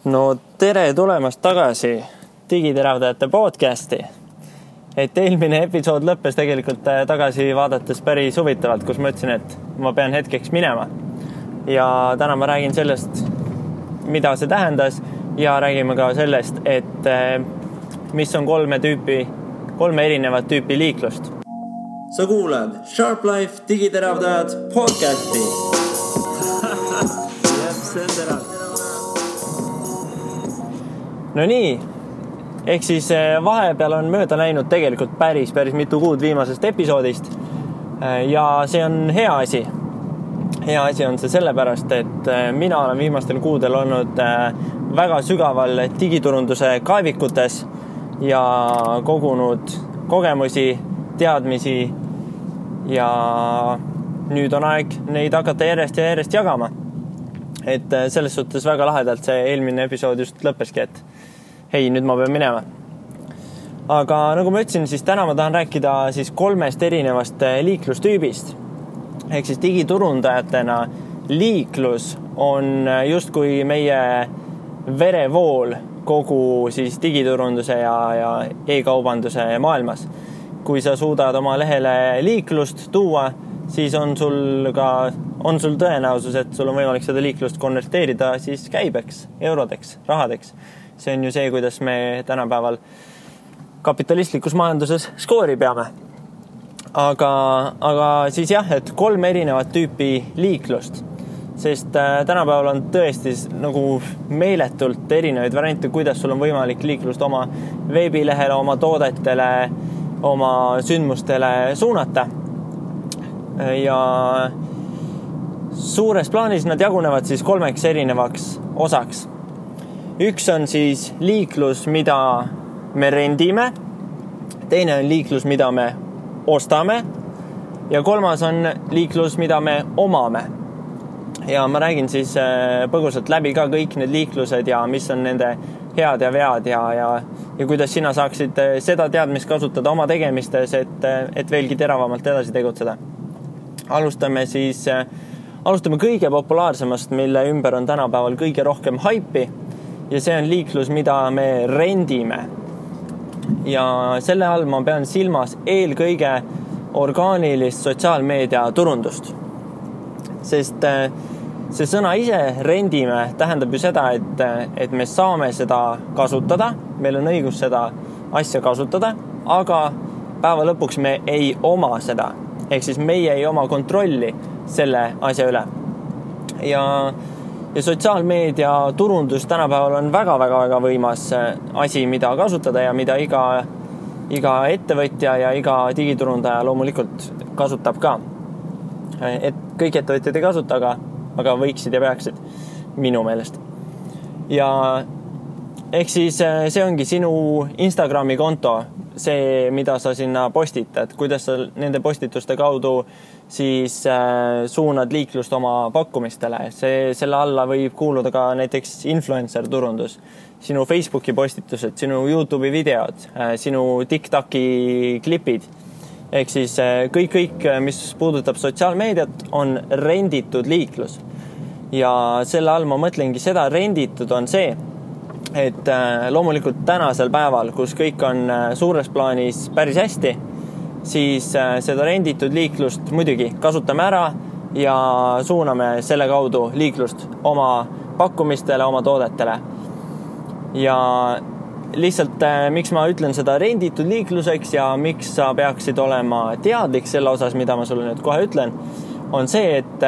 No tere tulemast tagasi Digiteravdajate podcasti. Et eelmine episood lõppes tegelikult tagasi vaadates päris huvitavalt, kus ma ütlesin, et ma pean hetkeks minema. Ja täna ma räägin sellest, mida see tähendas ja räägime ka sellest, et mis on kolme erinevat tüüpi liiklust. Sa kuulad Sharp Life Digiteravdajad podcasti. Jep, see on terav. No nii, ehk siis vahepeal on mööda läinud tegelikult päris mitu kuud viimasest episoodist ja see on hea asi. Hea asi on see sellepärast, et mina olen viimastel kuudel olnud väga sügaval digiturunduse kaevikutes ja kogunud kogemusi, teadmisi ja nüüd on aeg neid hakata järjest jagama. Et selles suhtes väga lahedalt see eelmine episood just lõppeski, et hei, nüüd ma pean minema. Aga nagu ma ütlesin, siis täna ma tahan rääkida siis kolmest erinevast liiklustüübist. Ehk siis digiturundajatena liiklus on justkui meie verevool kogu siis digiturunduse ja e-kaubanduse maailmas. Kui sa suudad oma lehele liiklust tuua, siis on sul tõenäosus, et sul on võimalik seda liiklust konverteerida siis käibeks, eurodeks, rahadeks. See on ju see, kuidas me tänapäeval kapitalistlikus majanduses skoori peame. Aga siis jah, et kolm erinevat tüüpi liiklust, sest tänapäeval on tõesti nagu meeletult erinevaid variante, kuidas sul on võimalik liiklust oma veebilehele, oma toodetele, oma sündmustele suunata. Ja suures plaanis nad jagunevad siis kolmeks erinevaks osaks. Üks on siis liiklus, mida me rendime, teine on liiklus, mida me ostame ja kolmas on liiklus, mida me omame. Ja ma räägin siis põgusalt läbi ka kõik need liiklused ja mis on nende head ja vead ja kuidas sina saaksid seda teadmist kasutada oma tegemistes, et veelgi teravamalt edasi tegutseda. Alustame kõige populaarsemast, mille ümber on tänapäeval kõige rohkem haipi ja see on liiklus, mida me rendime. Ja selle all ma pean silmas eelkõige orgaanilist sotsiaalmeedia turundust. Sest see sõna ise rendime tähendab ju seda, et me saame seda kasutada, meil on õigus seda asja kasutada, aga päeva lõpuks me ei oma seda. Ehk siis meie ei oma kontrolli selle asja üle. Ja sotsiaalmeedia turundus tänapäeval on väga võimas asi, mida kasutada ja mida iga ettevõtja ja iga digiturundaja loomulikult kasutab ka. Et kõik ettevõtjad ei kasuta, aga võiksid ja peaksid minu meelest. Ja ehk siis see ongi sinu Instagrami konto, see, mida sa sinna postitad, kuidas sa nende postituste kaudu siis suunad liiklust oma pakkumistele. Selle alla võib kuuluda ka näiteks influencer turundus, sinu Facebooki postitused, sinu YouTube'i videod, sinu TikToki klipid. Ehk siis kõik, mis puudutab sotsiaalmeediat, on renditud liiklus. Ja selle all ma mõtlengi seda, renditud on see, et loomulikult tänasel päeval, kus kõik on suures plaanis päris hästi, siis seda renditud liiklust muidugi kasutame ära ja suuname selle kaudu liiklust oma pakkumistele, oma toodetele. Ja lihtsalt, miks ma ütlen seda renditud liikluseks ja miks sa peaksid olema teadlik selle osas, mida ma sulle nüüd kohe ütlen, on see, et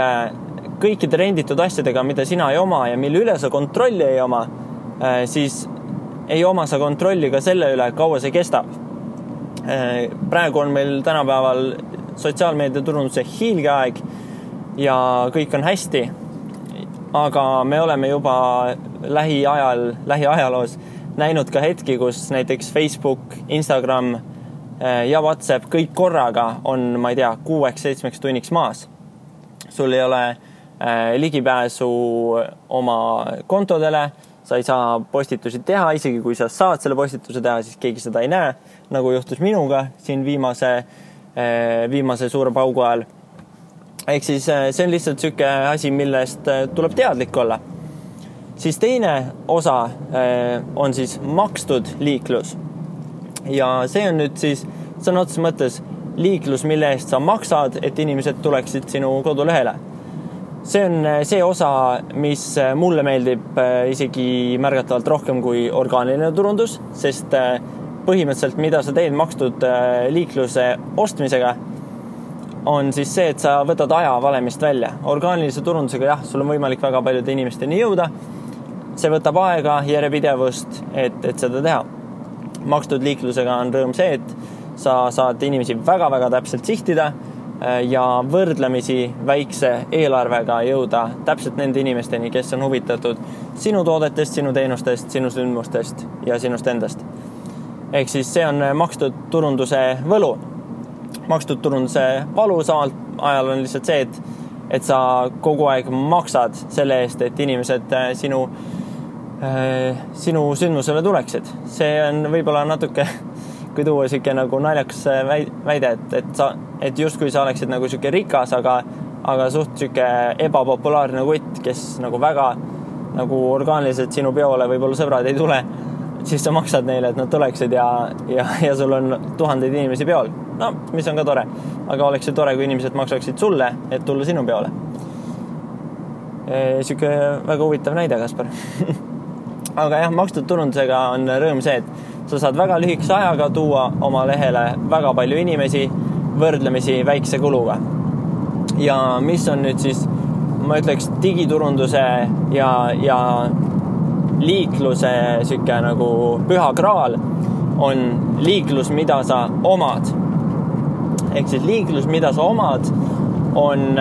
kõikide renditud asjadega, mida sina ei oma ja mille üle sa kontrolli ei oma, siis ei oma sa kontrolli ka selle üle, kaua see kestab. Praegu on meil tänapäeval sotsiaalmeedia turunduse hiilgeaeg ja kõik on hästi, aga me oleme juba lähiajaloos näinud ka hetki, kus näiteks Facebook, Instagram ja WhatsApp kõik korraga on, ma ei tea, 6-7 tunniks maas. Sul ei ole ligipääsu oma kontodele, sa ei saa postitusi teha, isegi kui sa saad selle postituse teha, siis keegi seda ei näe, nagu juhtus minuga siin viimase suure paugu ajal. Ehk siis see on lihtsalt selline asi, millest tuleb teadlik olla. Siis teine osa on siis makstud liiklus ja see on nüüd siis sõna otseses mõttes liiklus, mille eest sa maksad, et inimesed tuleksid sinu kodulehele. See on see osa, mis mulle meeldib isegi märgatavalt rohkem kui orgaaniline turundus, sest põhimõtteliselt, mida sa teed makstud liikluse ostmisega, on siis see, et sa võtad aja valemist välja. Orgaanilise turundusega, sul on võimalik väga paljude inimesteni jõuda. See võtab aega, järjepidevust, et seda teha. Makstud liiklusega on rõõm see, et sa saad inimesi väga-väga täpselt sihtida ja võrdlemisi väikse eelarvega jõuda täpselt nende inimesteni, kes on huvitatud sinu toodetest, sinu teenustest, sinu sündmustest ja sinust endast. Ehk siis see on makstud turunduse võlu. Makstud turunduse valu samal ajal on lihtsalt see, et sa kogu aeg maksad selle eest, et inimesed sinu sündmusele tuleksid. See on võib-olla natuke, kui tuua siuke nagu naljakas väide, et justkui sa oleksid nagu siuke rikas, aga suht siuke ebapopulaarne kutt, kes nagu väga nagu orgaaniliselt sinu peole võib-olla sõbrad ei tule, siis sa maksad neile, et nad tuleksid ja sul on tuhandeid inimesi peol. No, mis on ka tore. Aga oleks see tore, kui inimesed maksaksid sulle, et tulla sinu peole. Siuke väga huvitav näide, Kaspar. Aga makstud turundusega on rõõm see, et sa saad väga lühikese ajaga tuua oma lehele väga palju inimesi võrdlemisi väikse kuluga. Ja mis on nüüd siis, ma ütleks, digiturunduse ja liikluse siuke nagu püha kraal on liiklus, mida sa omad. Ehk siis liiklus, mida sa omad, on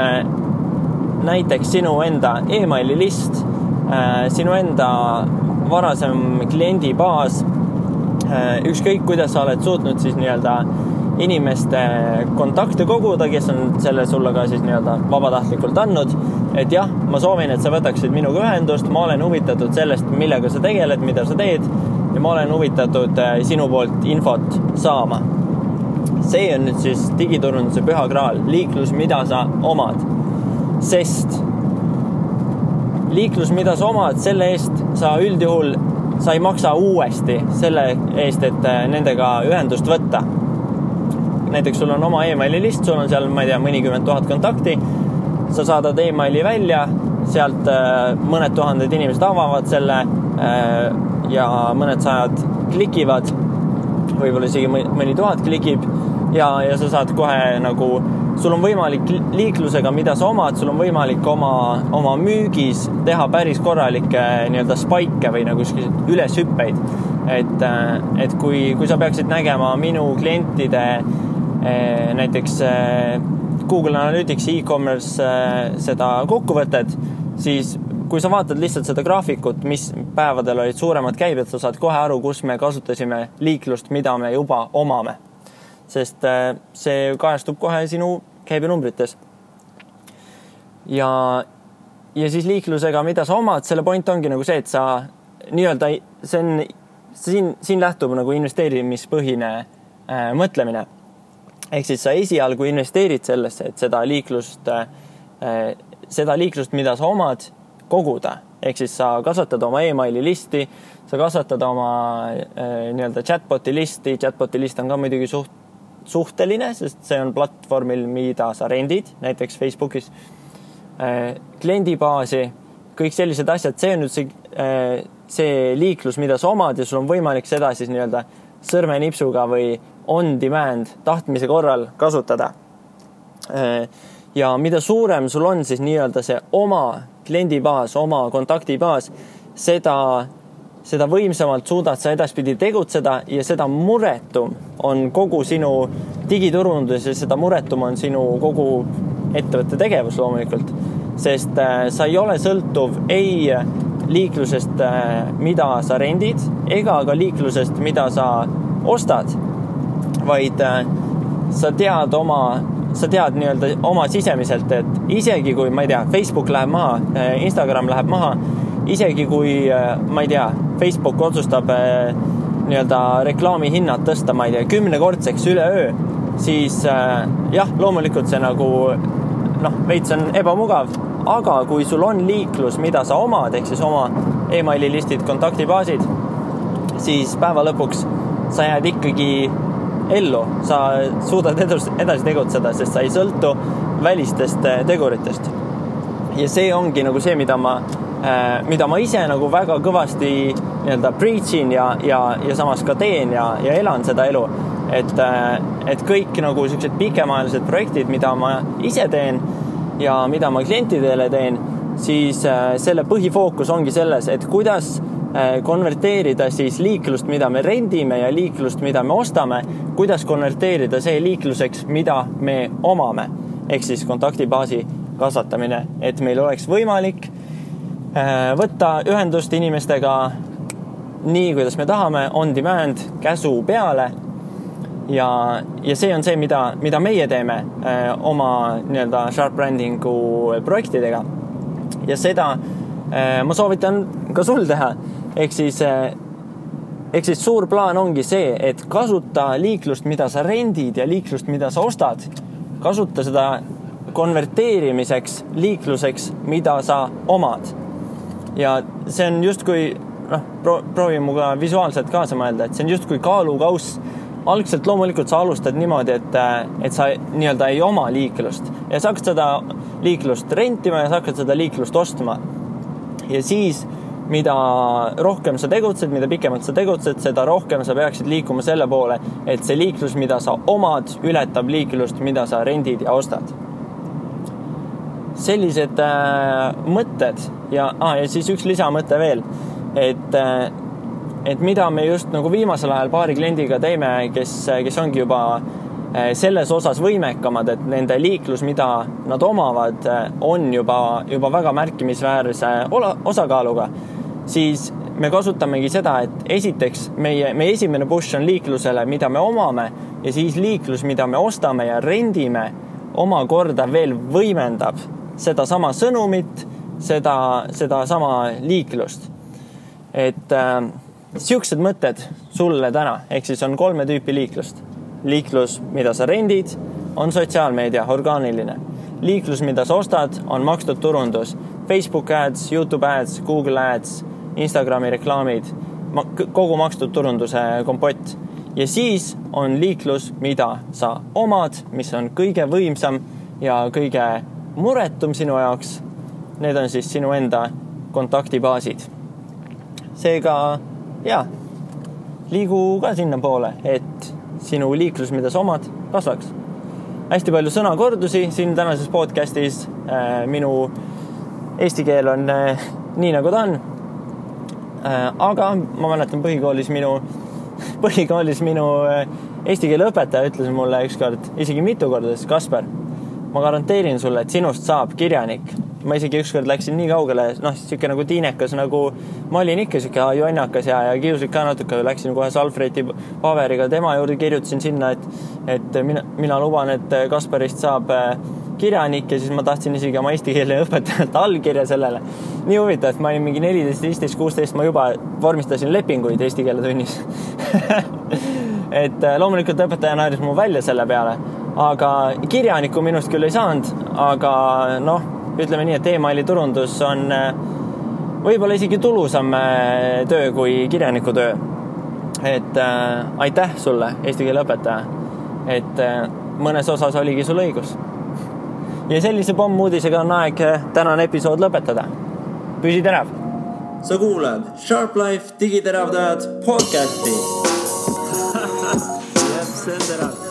näiteks sinu enda e-maili list, sinu enda varasem kliendibaas, ükskõik kuidas sa oled suutnud siis nii-öelda inimeste kontakte koguda, kes on selle sulle ka siis nii-öelda vabatahtlikult andnud, et ma soovin, et sa võtaksid minuga ühendust, ma olen huvitatud sellest, millega sa tegeled, mida sa teed ja ma olen huvitatud sinu poolt infot saama. See on nüüd siis digiturunduse püha kraal, liiklus, mida sa omad, sest liiklus, mida sa omad, selle eest sa üldjuhul sa ei maksa uuesti selle eest, et nendega ühendust võtta. Näiteks sul on oma e-maili list, sul on seal, ma ei tea, mõnikümmend 1000 kontakti, sa saadad e-maili välja, sealt mõned tuhanded inimesed avavad selle ja mõned sajad klikivad, võib-olla isegi mõni 1000 klikib ja sa saad kohe nagu, sul on võimalik liiklusega, mida sa omad, sul on võimalik oma müügis teha päris korralikke nii-öelda spike või nagu üleshüppeid. Et kui sa peaksid nägema minu klientide näiteks Google Analytics e-commerce seda kokkuvõtet, siis kui sa vaatad lihtsalt seda graafikut, mis päevadel olid suuremad käibed, sa saad kohe aru, kus me kasutasime liiklust, mida me juba omame. Sest see kajastub kohe sinu käibenumbrites. Ja siis liiklusega, mida sa omad, selle point ongi nagu see, et sa nii-öelda, siin lähtub nagu investeerimispõhine mõtlemine. Ehk siis sa esialgu investeerid sellesse, et seda liiklust, mida sa omad, koguda. Ehk siis sa kasvatad oma e-maili listi, sa kasvatad oma nii-öelda chatboti listi. Chatboti list on ka muidugi suhteline, sest see on platvormil, mida sa rendid, näiteks Facebookis, kliendibaasi, kõik sellised asjad, see on nüüd see liiklus, mida sa omad ja sul on võimalik seda siis nii-öelda sõrmenipsuga või on demand tahtmise korral kasutada. Ja mida suurem sul on siis nii-öelda see oma kliendibaas, oma kontaktibaas, seda võimsamalt suudad sa edaspidi tegutseda ja seda muretum on kogu sinu digiturundus ja seda muretum on sinu kogu ettevõtte tegevus loomulikult. Sest sa ei ole sõltuv ei liiklusest, mida sa rendid, ega ka liiklusest, mida sa ostad, vaid sa tead nii-öelda oma sisemiselt, et isegi kui, ma ei tea, Facebook läheb maha, Instagram läheb maha, isegi kui, ma ei tea, Facebook otsustab nii-öelda reklaami hinnad tõsta, ma ei tea, 10-kordseks üleöö, siis loomulikult see nagu, veits on ebamugav, aga kui sul on liiklus, mida sa omad, ehk siis oma emaililistid, kontaktibaasid, siis päeva lõpuks sa jääd ikkagi ellu, sa suudad edasi tegutseda, sest sa ei sõltu välistest teguritest. Ja see ongi nagu see, mida ma ise nagu väga kõvasti nii-öelda preachin ja samas ka teen ja elan seda elu. Et kõik nagu sellised pikemaajalised projektid, mida ma ise teen ja mida ma klientidele teen, siis selle põhifookus ongi selles, et kuidas konverteerida siis liiklust, mida me rendime ja liiklust, mida me ostame, kuidas konverteerida see liikluseks, mida me omame. Ehk siis kontaktibaasi kasvatamine, et meil oleks võimalik võtta ühendust inimestega nii, kuidas me tahame, on demand, käsu peale. Ja see on see, mida meie teeme oma nii-öelda sharp brandingu projektidega. Ja seda ma soovitan ka sul teha. Ehk siis suur plaan ongi see, et kasuta liiklust, mida sa rendid ja liiklust, mida sa ostad. Kasuta seda konverteerimiseks liikluseks, mida sa omad. Ja see on just kui, proovi muga visuaalselt kaasa mõelda, et see on just kui kaalukauss. Algselt loomulikult sa alustad niimoodi, et sa nii-öelda ei oma liiklust. Ja sa hakkad seda liiklust rentima ja sa hakkad seda liiklust ostma. Ja siis, mida rohkem sa tegutsed, mida pikemalt sa tegutsed, seda rohkem sa peaksid liikuma selle poole, et see liiklus, mida sa omad, ületab liiklust, mida sa rendid ja ostad. Sellised mõtted ja siis üks lisamõte veel, et mida me just nagu viimasel ajal paari kliendiga teeme, kes ongi juba selles osas võimekamad, et nende liiklus, mida nad omavad, on juba väga märkimisväärse osakaaluga, siis me kasutamegi seda, et esiteks meie esimene push on liiklusele, mida me omame, ja siis liiklus, mida me ostame ja rendime, omakorda veel võimendab seda sama sõnumit, seda sama liiklust. Et siuksed mõtted sulle täna, ehk siis on 3 tüüpi liiklust. Liiklus, mida sa rendid, on sotsiaalmeedia, orgaaniline. Liiklus, mida sa ostad, on makstud turundus. Facebook ads, YouTube ads, Google ads, Instagrami reklaamid, kogu makstud turunduse kompott. Ja siis on liiklus, mida sa omad, mis on kõige võimsam ja kõige muretum sinu jaoks. Need on siis sinu enda kontaktibaasid. Seega, liigu ka sinna poole, et sinu liiklus, mida sa omad, kasvaks. Hästi palju sõnakordusi siin tänases podcastis. Minu eesti keel on nii, nagu ta on. Aga ma mäletan põhikoolis minu eesti keele õpetaja ütles mulle ükskord, isegi mitu korda, Kasper, ma garanteerin sulle, et sinust saab kirjanik. Ma isegi ükskord läksin nii kaugele, siuke nagu tiinekas, nagu ma olin ikka siuke jonnakas ja kiuslik ka natuke, läksin kohe Salfreti paberiga tema juurde, kirjutasin sinna, et mina luban, et Kasperist saab kirjanik ja siis ma tahtsin isegi oma eesti keele õpetajalt allkirja sellele. Nii huvitav, et ma olin mingi 14, 15, 16, ma juba vormistasin lepinguid eesti keele tunnis. Et loomulikult õpetaja naeris mu välja selle peale, aga kirjaniku minust küll ei saanud, aga ütleme nii, et emaili turundus on võib-olla isegi tulusam töö kui kirjaniku töö. Et aitäh sulle, eesti keele õpetaja, et mõnes osas oligi sul õigus. Ja sellise pommuudisega on aeg tänane episood lõpetada. Püsi terav! Sa kuulad Sharp Life digiteravdajad podcasti. Jep, see on terav.